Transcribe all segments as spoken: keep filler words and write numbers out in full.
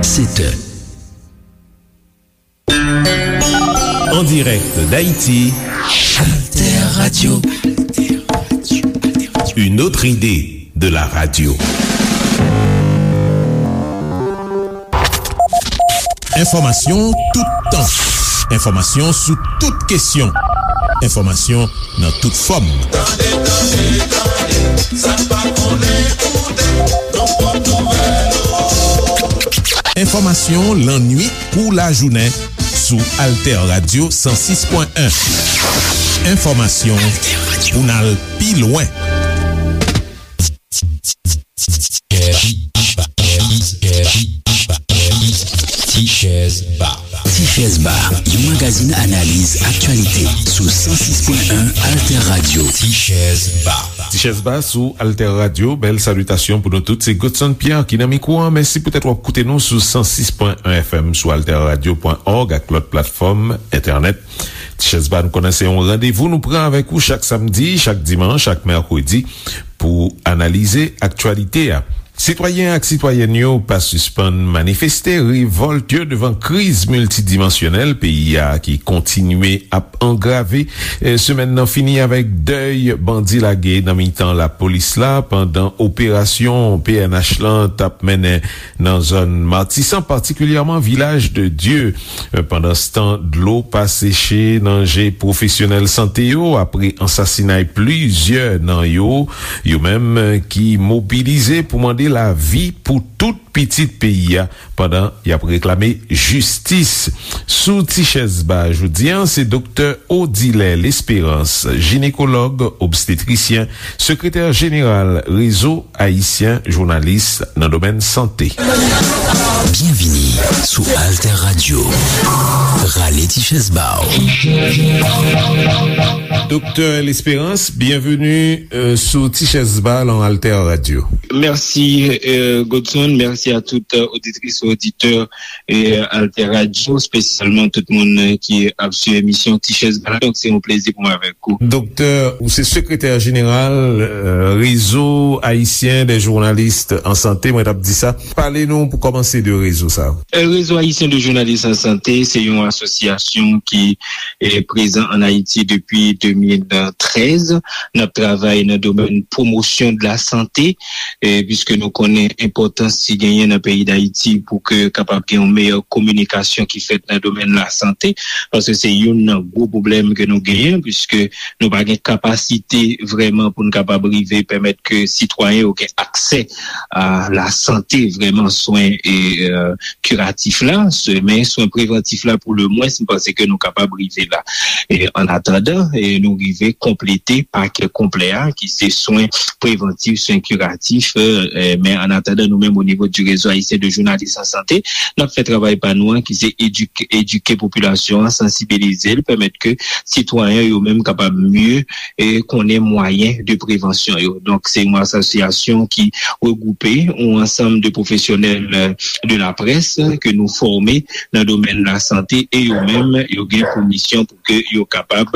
Sept heures. En direct d'Haïti, Alter Radio. Une autre idée de la radio. Enfòmasyon toutan. Enfòmasyon sou tout kesyon. Enfòmasyon nan tout fòm. Tande, tande, tande, sa n pa konnen koute, nan pwòp nouvèl ou. Enfòmasyon lannwit kou lajounen sou Alter Radio san sis pwen en. Enfòmasyon pou n al pi lwen. Ti Chèz Ba. Ti Chèz Ba, yon magazin analiz aktyalite sou san sis pwen en Alter Radio. Ti Chèz Ba. Ti Chèz Ba sou Alter Radio. Bèl salitasyon pou nou tout. Se Godson Pierre ki nan mikwo a. Mèsi poutèt w ap koute nou sou san sis pwen en F M, sou alter radio pwen org ak lòt platfòm entènèt. Ti Chèz Ba, nou konnen se yon randevou nou pran avèk ou chak samdi, chak dimanch, chak mèkredi pou analize aktyalite a. Sitwayen ak sitwayèn yo pa sispann manifeste revòlt yo devan kriz miltidimansyonèl peyi a ki kontinye ap angrave. E, semèn nan fini avèk dèy bandi lage nan mitan lapolis la pandan operasyon P N H lan t ap mennen nan zòn Matisan, patikilyèman Vilaj de Dye. Pandanstan, dlo pa seche nan je pwofesyonèl sante yo apre ansasinay plizyè nan yo, yo menm ki mobilize pou mande lavi pou tout pitit peyi a pandan y ap reklame jistis. Sou Ti Chèz Ba jodi a, se Doktè Odilè Lesperans, jinekològ obstetrisyen, sekretè jeneral Rezo Ayisyen Jounalis nan domèn sante. Byenvini sou Alter Radio. Rale ti chèz ba w. Doktè Lesperans, byenveni, euh, sou Ti Chèz Ba lan Alter Radio. Mèsi, euh, Godson. Mèsi a tout, euh, oditris e oditè, euh, Alter Radio, espesyalman tout moun, euh, ki ap swiv emisyon Ti Chèz Ba la. Donk, se yon plezi pou mwen avèk ou. Doktè, ou se sekretè jeneral, euh, Réseau Haïtien des Journalistes en Santé, mwen t ap di sa. Pale nou pou kòmanse de rezo sa. Euh, Réseau Haïtien de Journalistes en Santé, se yon asosyasyon ki, eh, prezan ann Ayiti depi de mil trèz. N ap travay nan domèn pwomosyon de la sante, eh, piske nou konnen enpòtans ki genyen nan peyi Dayiti pou ke kapab gen yon meyè kominikasyon ki fèt nan domèn lasante, paske se youn nan gwo pwoblèm ke nou genyen, piske nou pa gen kapasite vrèman pou n kapab rive pèmèt ke sitwayen yo gen aksè a lasante, vrèman swen e, euh, kiratif la, se, men swen prevantif la pou le mwens, m panse ke nou kapab rive la. E, an atandan, e, nou rive konplete pakè konplè a, ki se swen prevantif, swen kiratif, e, men an atandan, nou menm, o nivo du Réseau Haïtien de Journalistes en Santé, n ap fè travay pa nou an, ki se edike, edike popilasyon an, sansibilize l, pèmèt ke sitwayen yo menm kapab mye, e, konnen mwayen de prevansyon yo. Donk, se yon asosyasyon ki regwoupe yon ansanm de pwofesyonèl, e, de la près ke nou fòme nan domèn lasante e yo menm, yo gen pou misyon pou ke yo kapab,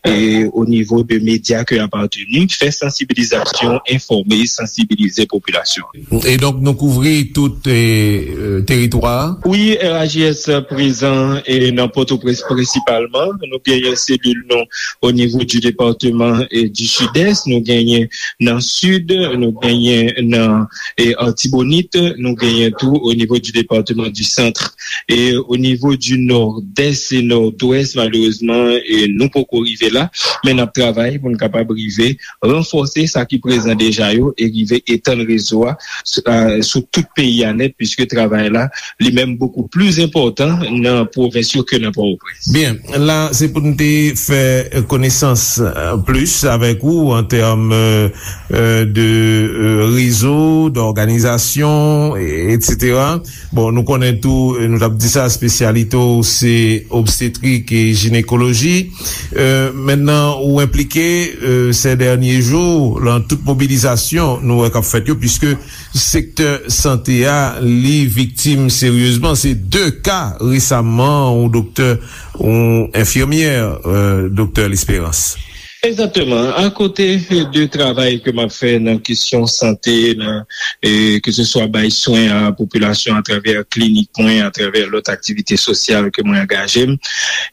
e, o nivo de medya ke y apateni, fè sansibilizasyon, enfòme, sansibilize popilasyon. E donk, nou kouvri tout, e, e, teritwa a? Wi, R H J S prezan, e, nan Pòtoprens prensipalman. Nou genyen selil nou o nivo du département, e, du Sud-Est, nou genyen nan Sid, nou genyen nan, e, Artibonit, nou genyen tou o nivo du département du Centre. E o nivo du Nord-Est e Nord-Ouest, malerezman, e, nou poko rive la, men n ap travay pou n kapab rive ranfòse sa ki prezan deja yo e rive etann rezo a sou, a, sou tout peyi a nèt, piske travay la, li menm, bokou pli enpòtan nan pwovens yo ke nan Pòtoprens. Byen, la, se pou n te fè konesans, euh, plis avèk ou an tèm, euh, euh, de, euh, rezo, dòganizasyon, e, etsetera. Bon, nou konnen tou, euh, nou t ap di sa, espesyalite w se obstetrik e jinekoloji. Euh, mentnan, ou enplike, euh, ces derniers jours, lan tout mobilizasyon nou wè k ap fèt yo, piske sektè sante a, li viktim seryezman. Se de ka resaman, yon doktè, yon enfimyè, euh, doktè Lesperans. Egzakteman. Akote de travay ke m ap fè nan kesyon sante, nan, e, ke se swa bay swen a popilasyon atravè klinik mwen, atravè lòt aktivite sosyal ke mwen angaje m,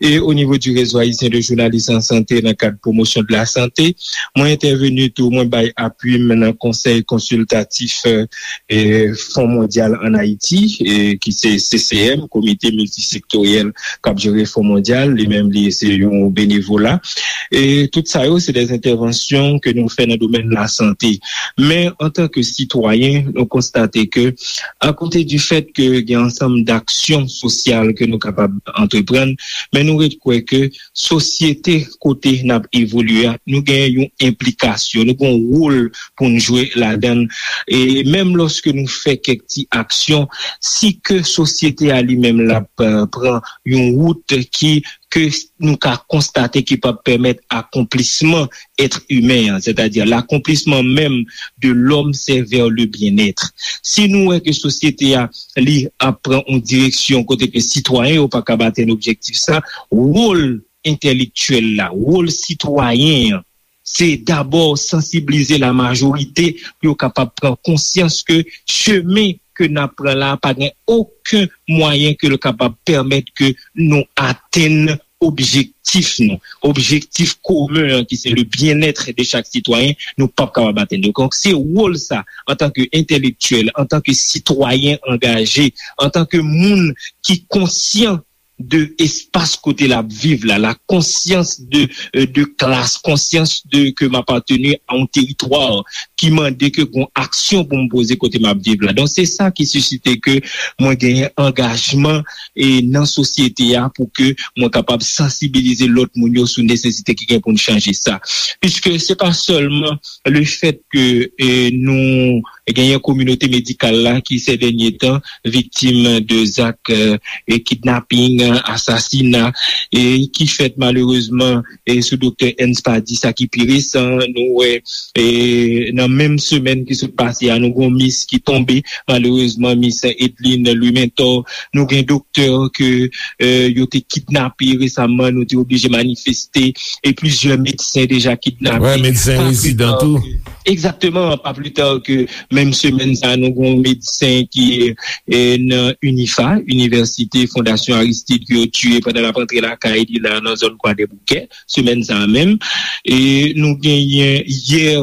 e o nivo di Réseau Haïtien de Journalistes en Santé, nan kad Promotion de la Santé, mwen entèveni tou, mwen bay apui m nan Konsèy Konsiltatif, e, Fon Mondyal ann Ayiti, e, ki se C C M, Komite Miltisektoryèl k ap jere Fon Mondyal, li menm li se yon benevola. E tout sa yo, se de entèvansyon ke nou fè nan domèn lasante. Men, antanke sitwayen, nou konstate ke, akote di fèt ke gen ansanm daksyon sosyal ke nou kapab antreprann, men nou ret kwè ke sosyete kote n ap evolye a, nou gen yon enplikasyon, nou gen yon wòl pou n jwe ladan l. E menm lòske nou fè kèk ti aksyon, si ke sosyete a li menm l ap, eh, pran yon wout ki, ke nou ka konstate ki p ap pèmèt akonplisman èt imen an, sètadi l'accomplissement même de l'homme, c'est vers le bien-être. Si nou wè ke sosyete a, li ap pran yon direksyon kote ke sitwayen yo pa ka atenn objektif sa, wòl entèlektyèl la, wòl sitwayen an, se dabò sansiblize lamajorite pou yo kapab pran konsyans ke chemen ke n ap pran la pa gen okenn mwayen ke l kapab pèmèt ke nou atenn objektif nou, objektif komen an ki se le bien-être de chaque citoyen, nou p ap kapab atenn li. Donk, se wòl sa, antanke entèlektyèl, antanke sitwayen angaje, antanke moun ki konsyan de espas kote l ap viv la, la konsyans de, euh, de klas, konsyans de ke m apateni a yon teritwa ki mande ke gon aksyon pou m poze kote m ap viv la. Donk, se sa ki sisite ke mwen genyen angajman e nan sosyete a pou ke mwen kapab sansibilize lòt moun yo sou nesesite ki gen pou n chanje sa. Piske se pa sèlman le fèt ke, e, nou genyen kominote medikal la ki, sè dènye tan, viktim de zak, e, e kidnaping, asasina, e ki fèt malerezman, e sou doktè Ernst Pady, sa ki pi resan, nou wè, e nan menm semèn ki sot pase a, nou gon mis ki tonbe, malerezman, mis Edline Louis Mentor, nou gen doktè ke, e, yo te kidnape resaman, nou te oblije manifeste, e plizyè medsen deja kidnape. Wè, medsen rezidan tou. Egzakteman, pa pli ta ke menm semèn sa, nou gon medsen ki, e, nan UNIFA, Inivèsite Fondasyon Aristide, ke yo tiye pandan l ap rantre lakay li la nan zòn Kwadèboukè, semèn sa a menm. E nou genyen yè,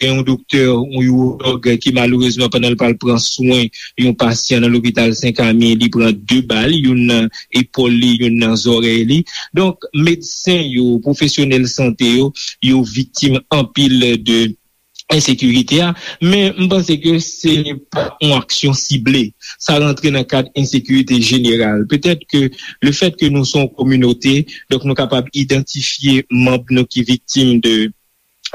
gen yon doktè, yon iwològ ki malerezman pandan l pral pran swen yon pasyan nan lopital Sen Kami, li pran de bal, youn nan epòl li, youn nan zòrèy li. Donk, medsen yo, pwofesyonèl sante yo, yo viktim anpil de ensekirite a, men m panse ke se pa yon aksyon sible. Sa rantre nan kad ensekirite jeneral. Petèt ke le fèt ke nou se yon kominote, donk nou kapab idantifye manm nou ki viktim de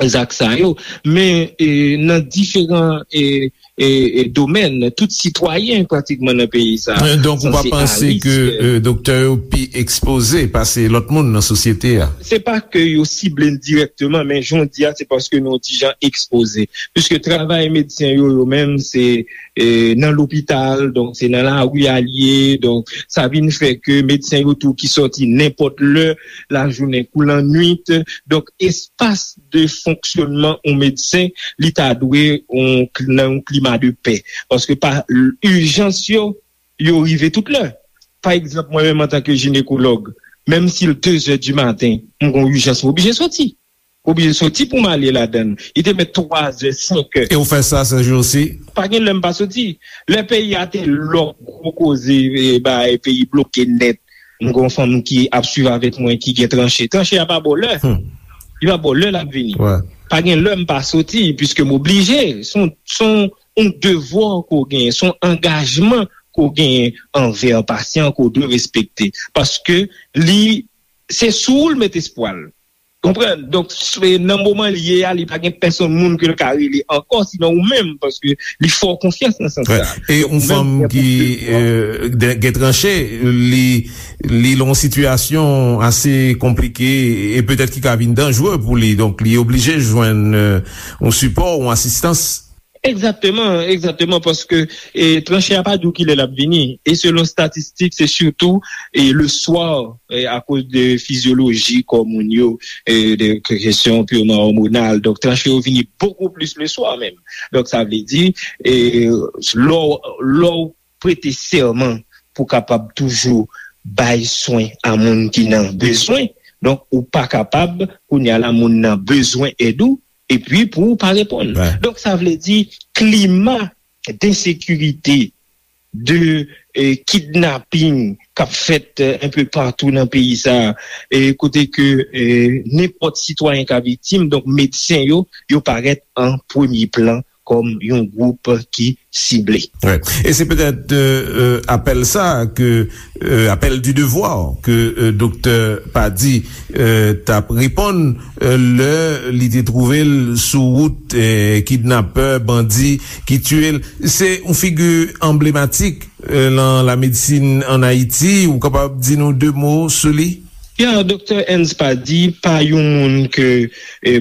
zak sa yo, men, e, nan diferan, e, e, e, domèn, tout sitwayen pratikman nan peyi sa. E, donk, ou pa sanse panse ke, e, doktè yo pi ekspoze pase lòt moun nan sosyete a? Se pa ke yo sible n dirèkteman, men jan w di a, se paske nou yon ti jan ekspoze. Piske travay medsen yo, yo menm, se, e, nan lopital, donk se nan lari a l ye, donk sa vin fè ke medsen yo tou ki sòti nenpòt lè, lajounen kou lannwit, donk espas de fonksyònman yon medsen, li ta dwe yon, nan yon klima de pè. Paske pa ijans yo, yo rive tout lè. Pa egzanp, mwen menm antanke jinekològ, menm si l de zè di maten, m gon ijans, m oblije soti. M oblije soti pou m ale ladan l. Li te mèt twa zè, senk è. E w fè sa, Serge, osi? Pa gen lè m pa soti. Lè peyi a te lòk, gwo koze, e, bay peyi bloke nèt. M gon fanm ki ap swiv avèk mwen, ki gen tranche. Tranche a pa ba w lè. Hmm. Li pa ba w lè l ap vini. Wè. Pa gen lè m pa soti, piske m oblije. Se yon, se yon, yon devwa ke w genyen, se yon angajman ke w genyen anvè pasyan ke w dwe respekte. Paske li, se sou ou l met espwa l. Konprann? Donk, s-, nan moman l ye a, li pa gen pèsonn moun ke l ka rele ankò, sinon ou menm, paske li fè w konfyans nan sans sa. Wè. E yon fanm ki, e, de-, gen tranche, li, li nan yon sitiyasyon ase konplike e petèt ki ka vin danjere pou li. Donk, li oblije jwenn, e, yon sipò, yon asistans. Egzakteman, egzakteman, paske e, tranche a pa di w kilè l ap vini. E selon statistik, se sitou e, le swa, e, akoz de fizyoloji kò moun yo, e, de kesyon pirman òmonal. Donk, tranche yo vini bokou plis le swa menm. Donk, sa vle di, e, lè w lè w prete sèman pou kapab toujou bay swen a moun ki nan bezwen, donk, ou pa kapab, kounye a la, moun nan bezwen èd ou, epi pou ou pa reponn. Donk, sa vle di, klima densekirite, de e, kidnaping k ap fèt e, enpe patou nan peyi sa a, e, kote ke e, nenpòt sitwayen ka viktim, donk medsen yo, yo parèt an premye plan kòm yon gwoup ki sible. E se petèt apèl sa ke, apèl du devoir ke Doktè Pady t ap reponn lè li te twouve l sou wout kidnapè, bandi ki tiye l. Se yon figi anblematik nan lamedsin ann Ayiti. Ou kapab di nou de mo sou li? Ya, Doktè Ernst Pady pa yon moun ke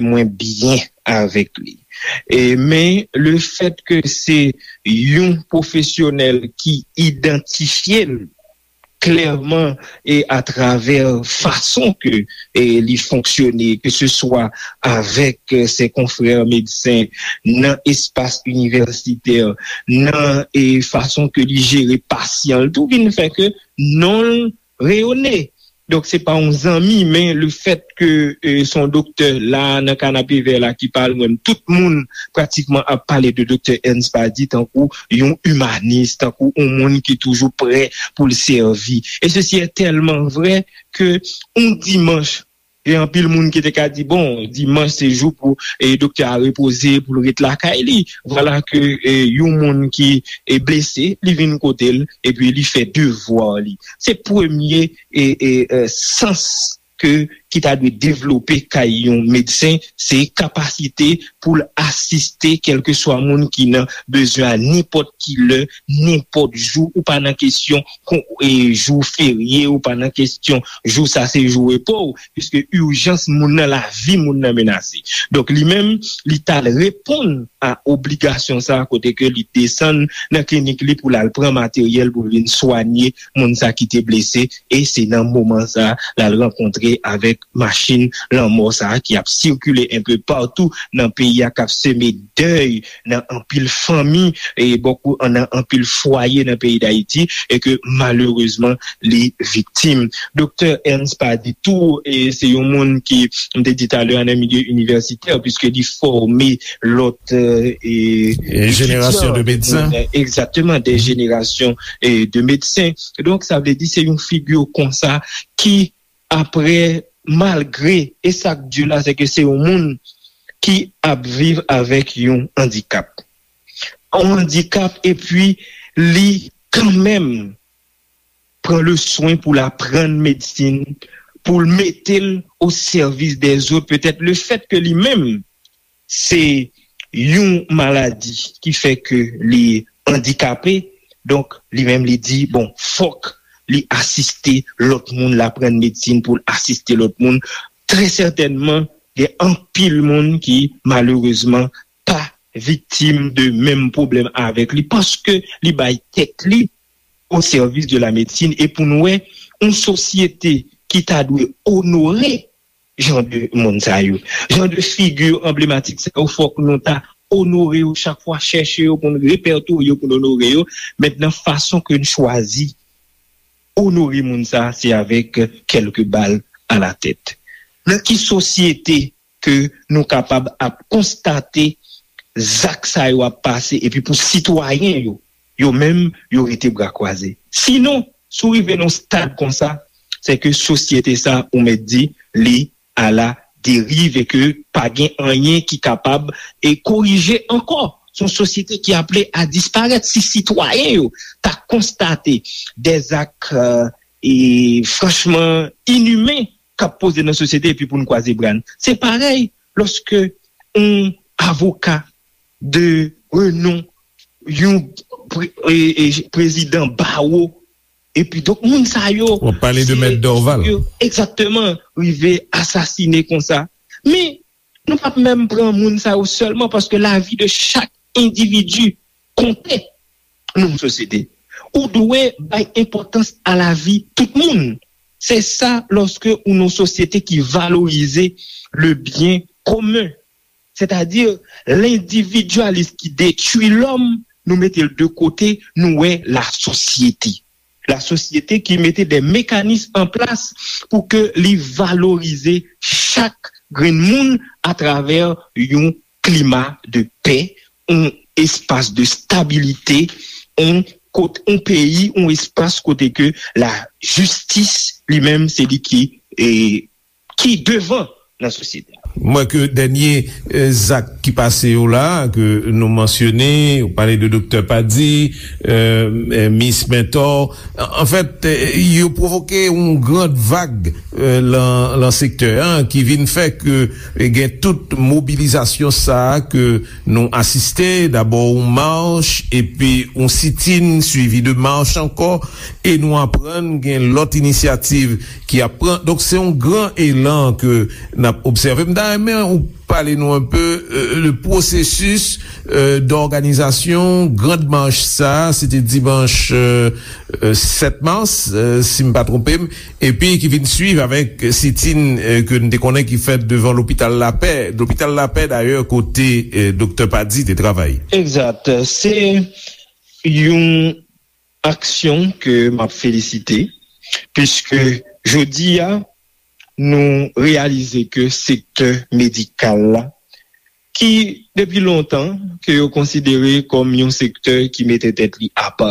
mwen byen avèk li. Men lefèt ke se yon pwofesyonèl ki idantifye l klèman e atravè fason ke e li fonksyone, keseswa avèk se konfrè medsen nan espas inivèsitè, nan e fason ke li jere pasyan l tou vin fè ke non l reyone. Donk, se pa yon zanmi, men lefèt ke e, se yon doktè la, nan kanapevè la ki pale, mwen, tout moun pratikman ap pale de Doktè Ernst Pady tankou yon imanis, tankou yon moun ki toujou prè pou l sèvi. E sesi e tèlman vrè ke yon dimanch, gen anpil moun ki te ka di, bon, dimanch se jou pou e, doktè a repoze, pou l ret lakay li. Vwala ke e, yon moun ki e, blese, li vin kote l, epi li fè devwa li. Se premye e, e, e, sans ke ki ta dwe devlope kay yon medsen, se kapasite pou l asiste kèlkeswa moun ki nan bezwen a nenpòt ki lè, nenpòt jou, ou pa nan kesyon kon, e, jou ferye, ou pa nan kesyon jou sa se jou repo w, piske ijans moun nan, lavi moun nan menase. Donk, li menm, li t al reponn a obligasyon sa a, kote ke li desann nan klinik li pou l al pran materyèl pou l vin swanye moun sa ki te blese, e se nan moman sa l al rankontre avèk machin lanmò sa ki ap sikile enpe patou nan peyi a, k ap seme dèy nan anpil fanmi, e bòkou nan anpil fwaye nan peyi Dayiti, e ke malerezman li viktim. Doktè Ernst Pady tou, e se yon moun ki, m te di talè a, nan milye inivèsitè, piske li fòme lòt e, jenerasyon de medsen. Egzakteman, de jenerasyon e, de medsen. Donk, sa vle di se yon figi konsa ki, apre, malgre, e sa k di la, se ke se yon moun ki ap viv avèk yon andikap. Yon andikap, epi li kanmenm pran le swen pou l aprann medsin, pou l mete l o sèvis dèzòt, petèt lefèt ke li menm se yon maladi ki fè ke li andikape, donk li menm li di, bon, fòk li asiste lòt moun, l aprann medsin pou l asiste lòt moun. Trè sètènman, gen anpil moun ki, malerezman, pa viktim de menm pwoblèm avèk li, paske li bay tèt li o sèvis de la medsin. E pou n wè, yon sosyete ki ta dwe onore jan de moun sa yo, jan de figi anblematik sa yo, fòk nou ta onore yo chak fwa, chèche yo pou n repètorye yo, pou n onore yo. Mentnan, fason ke n chwazi onore moun sa, se avèk kèlke bal a la tèt. Nan ki sosyete ke nou kapab ap konstate zak sa yo ap pase, epi pou sitwayen yo, yo menm, yo rete bra kwaze? Sinon, si w rive nan yon stad konsa, se ke sosyete sa, ou mèt di, li a la deriv e ke pa gen anyen ki kapab e korije ankò. Se yon sosyete ki aple a disparèt. Si sitwayen yo ta konstate dèzak e franchman inimen k ap poze nan sosyete, epi pou n kwaze bra n. Se parèy lòske yon avoka de renon, yon pre- e- e- prezidan bawo, epi donk moun sa yo, w ap pale de Mèt Dorval. Egzakteman, rive asasine konsa. Men, nou p ap menm pran moun sa yo sèlman, paske lavi de chak endividi konte nan yon sosyete. Ou dwe bay enpòtans a lavi tout moun. Se sa lòske ou nan yon sosyete ki valorize le byen komen. Sètadi, lendividyalis ki detwi lòm, nou mete l de kote, nou wè lasosyete. Lasosyete ki mete de mekanis an plas pou ke li valorize chak grenn moun atravè yon klima de pè, yon espas de stabilite, yon kot, yon peyi, yon espas kote ke lajistis li menm se li ki, e, ki devan nan sosyete a. M wè ke dènye, e, zak ki pase yo la, ke nou mansyone, ou pale de Doktè Padi, e, e, Mis Mentor, an, anfèt, e, yo pwovoke yon grand vag, e, lan, lan sektè an, ki vin fè ke, e, gen tout mobilizasyon sa a ke nou asiste, dabò yon mach, epi yon sitin, swivi de mach ankò, e nou aprann gen lòt inisyativ ki ap pran. Donk, se yon gran elan ke n ap obsève. M ta renmen ou pale nou enpe, e, de pwosesis, e, dòganizasyon grand mach sa, se te dimanch, e, e, sèt mas, e, si m pa twonpe m, epi ki vin swiv avèk sitin, e, ke n te konnen ki fèt devan lopital Lapè. Lopital Lapè, dayè, kote, e, Doktè Padi te travay. Egzat. Se yon aksyon ke m ap felisite, piske jodi a, nou reyalize ke sektè medikal la, ki depi lontan, ke yo konsidere kòm yon sektè ki mete tèt li apa,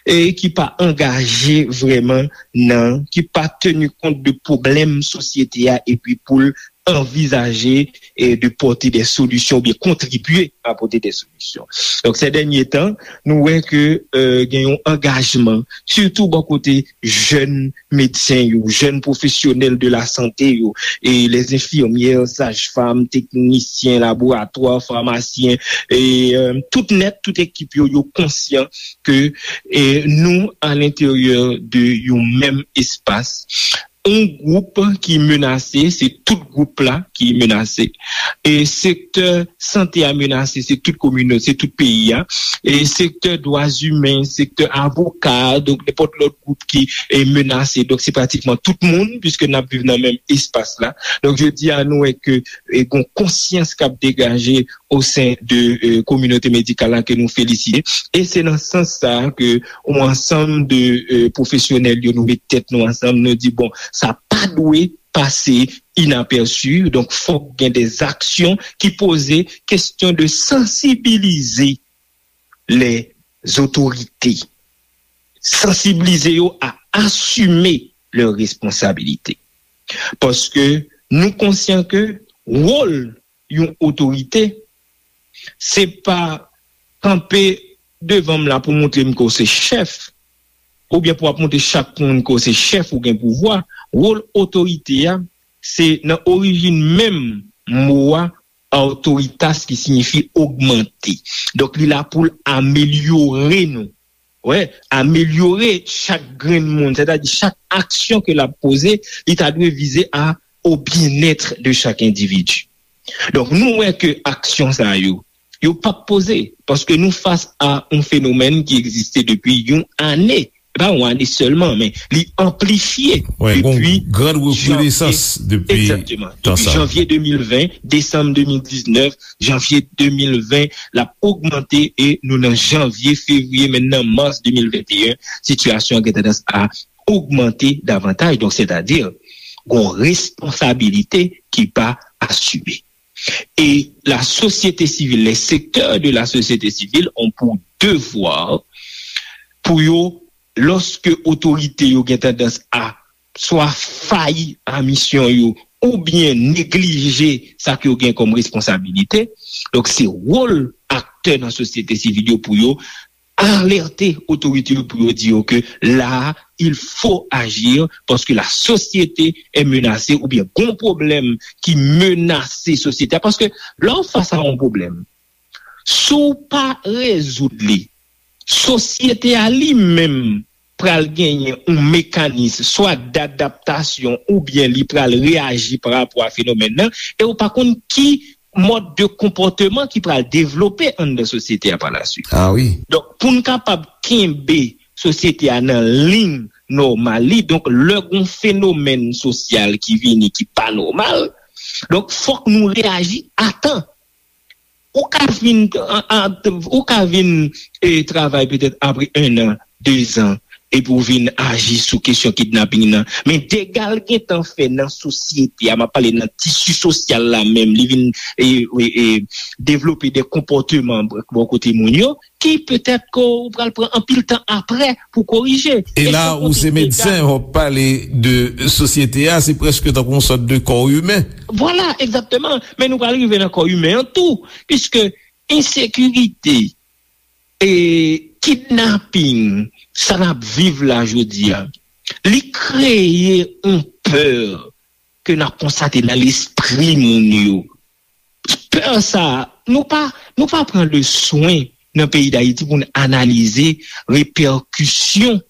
e ki pa angaje vrèman nan, ki pa teni kont de pwoblèm sosyete a, epi pou l anvizaje, e, de pòte de solisyon oubyen kontribye a pòte de solisyon. Donk, se dènye tan, nou wè ke, e, gen yon angajman, sitou bò kote jèn medsen yo, jèn pwofesyonèl de la sante yo, e les infirmières, saj-fam, teknisyen laboratwa, famasyen, e, e, tout nèt, tout ekip yo, yo konsyan ke, e, nou, a lenteryè de yon menm espas, yon gwoup ki menase, se tout gwoup la ki menase. E sektè sante a menase, se tout kominote, se tout peyi a. E sektè dwa imen, sektè avoka, donk nenpòt lòt gwoup ki, e, menase. Donk se pratikman tout moun, piske n ap viv nan menm espas la. Donk jodi a, nou wè ke, e, gon konsyans k ap degaje o sen de, e, kominote medikal la ke nou felisite. E se nan sans sa a ke yon ansanm de, e, pwofesyonèl yo, nou met tèt nou ansanm, nou di, bon, sa pa dwe pase inapèsi, donk fòk gen de aksyon ki poze kesyon de sansibilize les autorités, sansibilize yo a asime lè responsabilite. Paske nou konsyan ke wòl yon otorite, se pa kanpe devan m la pou montre m ke w se chèf, oubyen pou ap montre chak moun ke w se chèf ou gen pouvwa. Wòl otorite a, se nan orijin menm mo a, autoritas, ki siyifi ogmante. Donk, li la pou l amelyore nou. Wè, amelyore chak grenn moun, sètadi chak aksyon ke l ap poze, li ta dwe vize a au bien-être de chaque individu. Donk, nou wè ke aksyon sa yo, yo p ap poze, paske nou fas a yon fenomèn ki egziste depi yon ane. Se pa yon ane sèlman, men li anplifye depi gran rekredesans depi tan sa. Egzakteman. Depi janvye de mil ven, desanm de mil diznèf, janvye de mil ven, l ap ogmante e nou nan janvye, fevriye, menm nan mas de mil venteyen, sitiyasyon an gen tandans a ogmante davantaj. Donk, sètadi, gon responsabilite ki pa asime. E la société civile, les secteurs de la société civile ont pour devoir pou yo, lòske otorite yo gen tandans a swa fayi a misyon yo oubyen neglije sa ke yo gen kòm responsabilite, donk se wòl aktè nan sosyete sivil yo pou yo alète otorite yo pou yo di yo ke la, il faut agir parce que la société est menacée oubyen gon pwoblèm ki menase sosyete a. Paske lè w fas a yon pwoblèm, si w pa rezoud li, sosyete a li menm pral genyen yon mekanis swa dadaptasyon oubyen li pral reyaji pa rapò a fenomèn nan, e w pa konn ki mòd de konpòteman ki pral devlope anndan sosyete a pa la swit. Ah wi. Donk, pou n kapab kenbe sosyete a nan liy nòmal li, donk, lè gon fenomèn sosyal ki vini ki pa nòmal, donk, fòk nou reyaji a tan. Ou ka vin, an, an, ou ka vin e, travay petèt apre en an, de zan, epi w vin aji sou kesyon kidnaping nan. Men dega l gentan fè nan sosyete a, m ap pale nan tisi sosyal la menm, li vin e, e, e, devlope de konpòteman bò kote moun yo, ki petèt ke w pral pran anpil tan apre pou korije. E la, ou se medsen, w ap pale de sosyete a, se prèske tankou yon sòt de kò imen. Vwala, egzakteman. Men nou pral rive nan kò imen an tou, piske ensekirite, e kidnaping, sa n ap viv la jodi a, li kreye yon pè ke n ap konstate nan lespri moun yo. Pè sa, nou pa, nou pa pran le swen nan peyi Dayiti pou n analize repèkisyon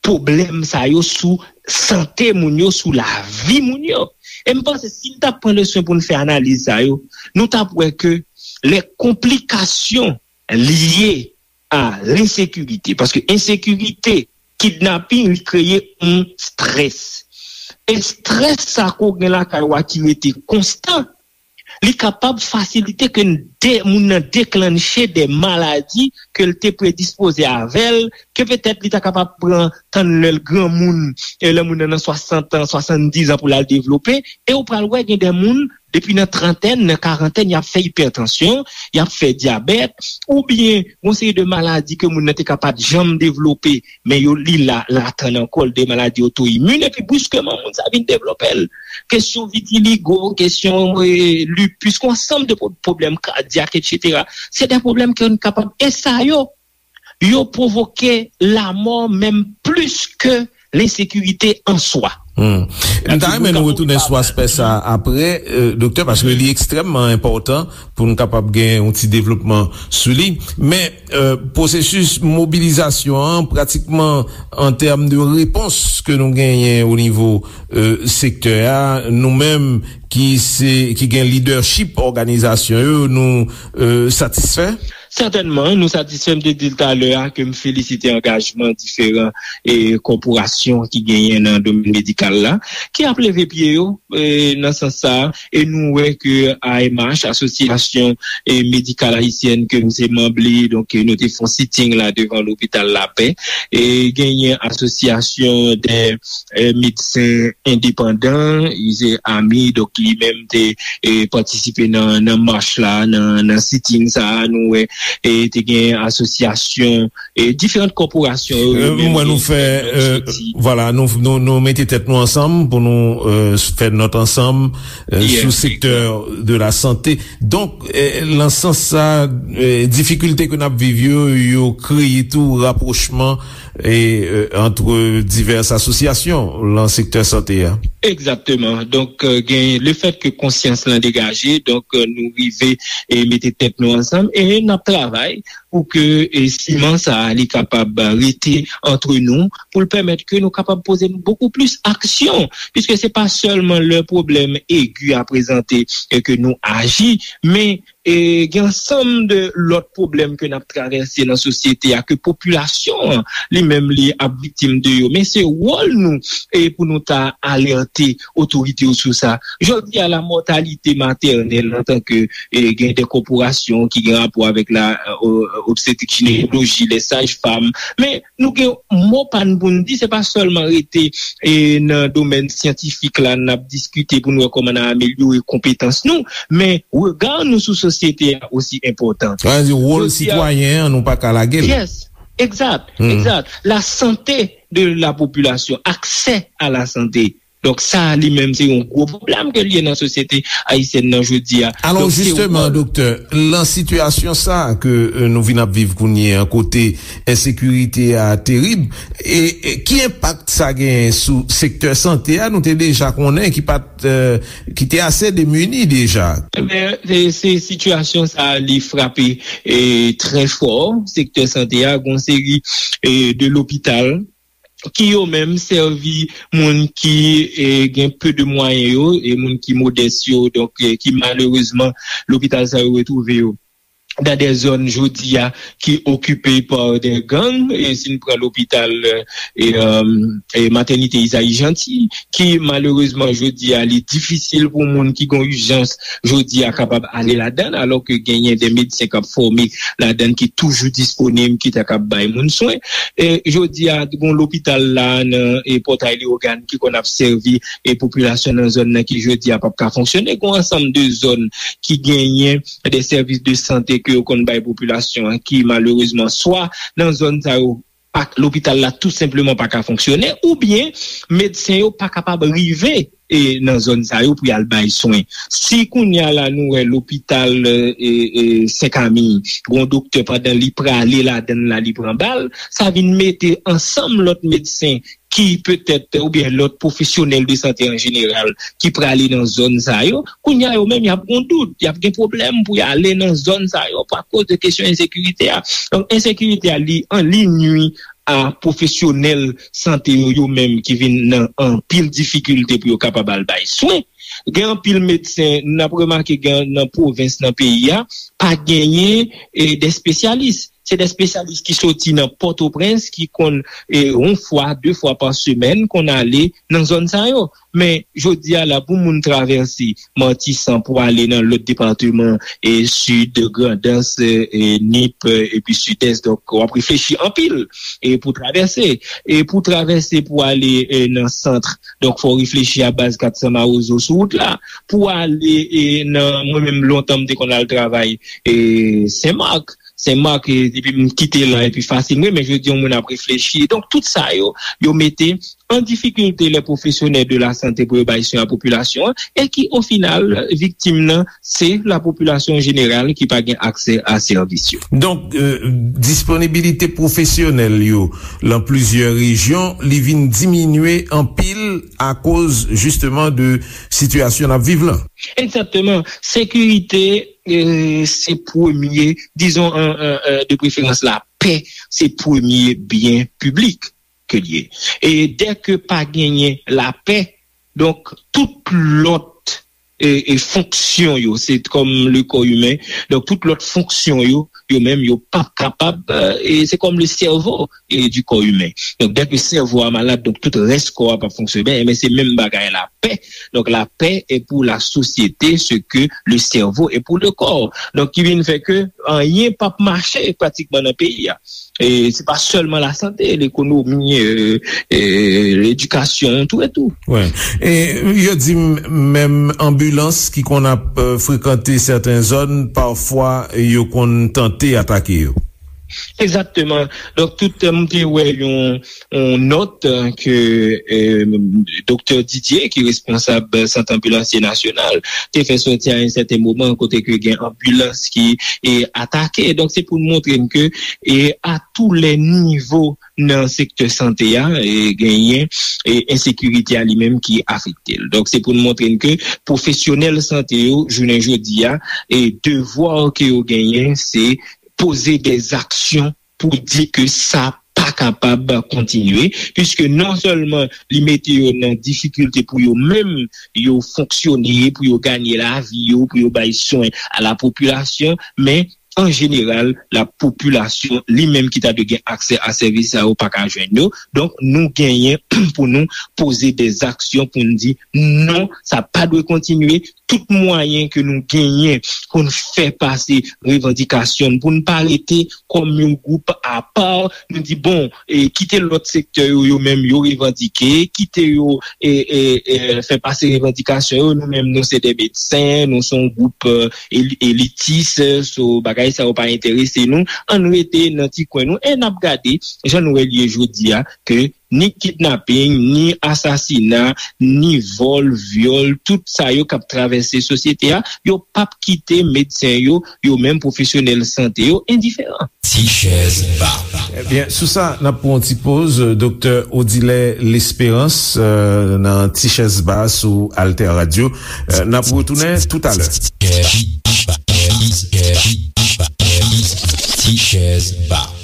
pwoblèm sa yo sou sante moun yo, sou lavi moun yo. E m panse si n t ap pran le swen pou n fè analiz sa yo, nou t ap wè ke lè konplikasyon lye a lensekirite, paske ensekirite, kidnaping, li kreye yon strès. E strès sa ke w gen lakay ou a ki rete konstan, li kapab fasilite ke de, moun nan deklanche de maladi ke l te predispoze avè l, ke petèt li ta kapab pran tann lè l granmoun, e lè moun nan nan swasant an, swasanndiz an pou l al devlope, e ou pral wè gen de moun, depi nan trantèn, nan karantèn, y ap fè ipètansyon, y ap fè dyabèt, oubyen yon seri de maladi ke moun nan te ka pa t janm devlope, men yo li la, latann ankò, de maladi oto imin, epi briskeman, moun sa vin devlope l. Kesyon vitiligo, kesyon e, lupus, yon ansanm de pwoblèm kadyak, etsetera. Se de pwoblèm ke nou kapab, e sa yo, yo pwovoke lanmò menm plis ke lensekirite an swa. Hmm. M ta renmen nou retounen sou aspè sa apre, doktè, paske li ekstrèmman enpòtan pou nou kapab gen yon ti devlopman sou li. Men, pwosesis mobilizasyon an, pratikman an tèm de repons ke nou genyen o nivo sektè a, nou menm ki se, ki gen lidèchip òganizasyon yo, nou satisfè? Sètènman, nou satisfè. M te di l talè a ke m felisite angajman diferan e kòporasyon ki genyen nan domèn medikal la, ki ap leve pye yo e, nan sans sa a, e nou wè ke A M H, Asosyasyon e, Medikal Ayisyèn ke m se manm li, donk, e, nou te fè yon sitting la devan lopital Lapè, e genyen asosyasyon de e, medsen endepandan, se ami, donk li menm te e, patisipe nan, nan mach la, nan, nan sitting sa a, nou wè, e te gen asosyasyon, e diferan kòporasyon yo, yo menm te fè, e, vwala, nou, nou, nou mete tèt nou ansanm pou nou e, fè nòt ansanm e, sou sektè de la sante. Donk, e, nan sans sa, e, difikilte ke n ap viv yo, yo kreye tou rapwochman e, e, antre divès asosyasyon lan sektè sante a. Egzakteman. Donk, e, gen lefèt ke konsyans lan degaje, donk, e, nou rive e mete tèt nou ansanm e n ap travay pou ke e, siman sa a li kapab rete antre nou, pou l pèmèt ke nou kapab poze bokou plis aksyon, piske se pa sèlman lè pwoblèm egi a prezante e ke nou aji, men e gen ansanm de lòt pwoblèm ke n ap travèse nan sosyete a, ke popilasyon an li menm li ap viktim de yo. Men se wòl nou e pou nou ta alète otorite yo sou sa. Jodi a, la mòtalite matènèl antanke e gen de kòporasyon ki gen rapò avèk la e, obstetrik jinekoloji, lè saj fam, men nou gen mo pa n pou n di, se pa sèlman rete e, nan domèn syantifik la, n ap diskite pou n wè kòman n a amelyore konpetans nou, men rega nou sou sosyete a osi enpòtan. Sa vle di wòl sitwayen an, nou pa ka lage l. Yes, egzat, egzat. La santé de la population, aksè a la sante. Donk, sa a li menm, se yon gwo pwoblèm ke l ye nan sosyete ayisyèn nan jodi a. Alò, jisteman, doktè, lan sitiyasyon sa a ke e, nou vin ap viv kounye a, kote ensekirite a terib, e, e ki enpak sa genyen sou sektè sante a? Nou te deja konnen ki pa t, e, ki te ase demini deja. Ebyen, se, se sitiyasyon sa a, li frape e, trè fò sektè sante a. Gon seri e, de lopital ki yo menm sèvi moun ki e, gen pe de mwayen yo, e moun ki modès yo, donk e, ki malerezman lopital sa yo retwouve yo dan de zòn jodi a ki okipe pa de gang, e si n pran lopital e, e, e matènite Izayi Janti, ki malerezman jodi a li difisil pou moun ki gen ijans jodi a kapab ale ladan, alò ke genyen de medsen k ap fòme ladan ki toujou disponib, ki ta kab bay moun swen. E jodi a, gon lopital la nan e Pòtay Leyogàn ki konn ap sèvi e popilasyon nan zòn nan ki jodi a p ap ka fonksyone. Gon ansanm de zòn ki genyen de sèvis de sante ke yo konn bay popilasyon an ki malerezman swa nan zòn sa yo pa lopital la tou senpleman pa ka fonksyone, oubyen medsen yo pa kapab rive e nan zòn sa yo pou y al bay swen. Si kounye a la nou wè lopital e, e, Senkami, gon doktè pandan li prale ladan l la li pran bal, sa vin mete ansanm lòt medsen ki petèt oubyen lòt pwofesyonèl de sante an jeneral ki prale nan zòn sa yo, kounye a yo menm y ap gon dout, y ap gen pwoblèm pou y ale nan zòn sa yo pa koz de kesyon ensekirite a. Donk ensekirite a li an li nwi a pwofesyonèl sante yo, yo menm ki vin nan anpil difikilte pou yo kapab al bay swen. Gen anpil medsen, n ap remake gen nan pwovens nan peyi a, pa genyen e, de espesyalis. Se de espesyalis ki soti nan Pòtoprens, ki konn e, yon fwa, de fwa pa semèn, konn ale nan zòn sa yo. Men jodi a la, pou moun travèse Matisan pou ale nan lòt depatman, e Sid, Grandans, e, e Nip, e, epi Sidès, donk w ap reflechi anpil e pou travèse. E pou travèse pou ale e, nan sant, donk fò w reflechi a baz kat san Mawozo sou wout la. Pou ale e, nan, mwen menm lontan m te konn al travay e, Senmak. Senmak, e, depi m kite la, epi fasil mwen, men jodi yon moun ap reflechi. Donk tout sa yo, yo mete an difikilte lè pwofesyonèl de la sante pou yo bay swen a popilasyon an, e ki o final, viktim nan, se la popilasyon jeneral ki pa gen aksè a sèvis yo. Donk, e, disponibilite pwofesyonèl yo lan plizyè rejyon, li vin diminye anpil akoz, jisteman, de sitiyasyon n ap viv lan. Egzakteman. Sekirite, e, se premye, dizon, e, e, e, de preferans, lapè, se premye byen piblik ke l ye. E dèke pa genyen lapè, donk, tout lòt e, e fonksyon yo, se kòm le kò imen, donk tout lòt fonksyon yo, yo menm, yo p ap kapab, e, e se kòm le sèvo e, du corps humain. Donk dèke sèvo a malad, donk tout rès kò a p ap fonksyone byen, men se menm bagay lapè. Donk lapè est pour la société ce que le cerveau est pour le corps. Donk ki vin fè ke anyen p ap mache pratikman nan peyi a. E se pa sèlman lasante, lekonomi, e, e, ledikasyon, tou e tou. Wi. E yo di m, menm anbilans ki konn ap e, frekante sèten zòn, pafwa yo konn tante atake yo. Egzakteman. Donk tout, e, m te wè yon, yon nòt e, ke e, doktè Didier, ki responsab Sant Anbilansye Nasyonal, te fè sòti a yon sèten moman kote ke gen anbilans ki e, atake. Donk se pou n montre n ke e, a tou lè nivo nan sektè sante a, e, genyen e, ensekirite a li menm ki afekte l. Donk se pou n montre n ke pwofesyonèl sante yo, jounen jodi a, e devwa ke yo genyen, se poze de aksyon pou di ke sa pa kapab kontinye, piske non sèlman li mete yo nan difikilte pou yo menm yo fonksyone, pou yo ganye lavi yo, pou yo bay swen a la popilasyon, men an jeneral, la popilasyon li menm ki ta dwe gen aksè a sèvis sa yo pa ka jwenn yo. Donk, nou genyen pou nou poze de aksyon pou n di non, sa pa dwe kontinye. Tout mwayen ke nou genyen pou n fè pase revandikasyon n, pou n pa rete kòm yon gwoup apa, nou di, bon, e, kite lòt sektè yo, yo menm, yo revandike, kite yo e, e, e, fè pase revandikasyon yo, nou menm, nou se de medsen, nou se yon gwoup e, eli- elitis, so bagay sa yo pa enterese nou, ann rete nan ti kwen nou, e n ap gade, jan nou wè l ye jodi a, ke ni kidnaping, ni asasina, ni vòl, vyòl, tout sa yo k ap travèse sosyete a, yo p ap kite medsen yo, yo menm pwofesyonèl sante yo, endiferan. Ti chèz ba. Ebyen, sou sa, n ap pran yon ti poz. Doktè Odilè Lesperans, e, nan Ti chèz ba sou Alter Radio. E, n ap retounen toutalè. Ti chèz ba.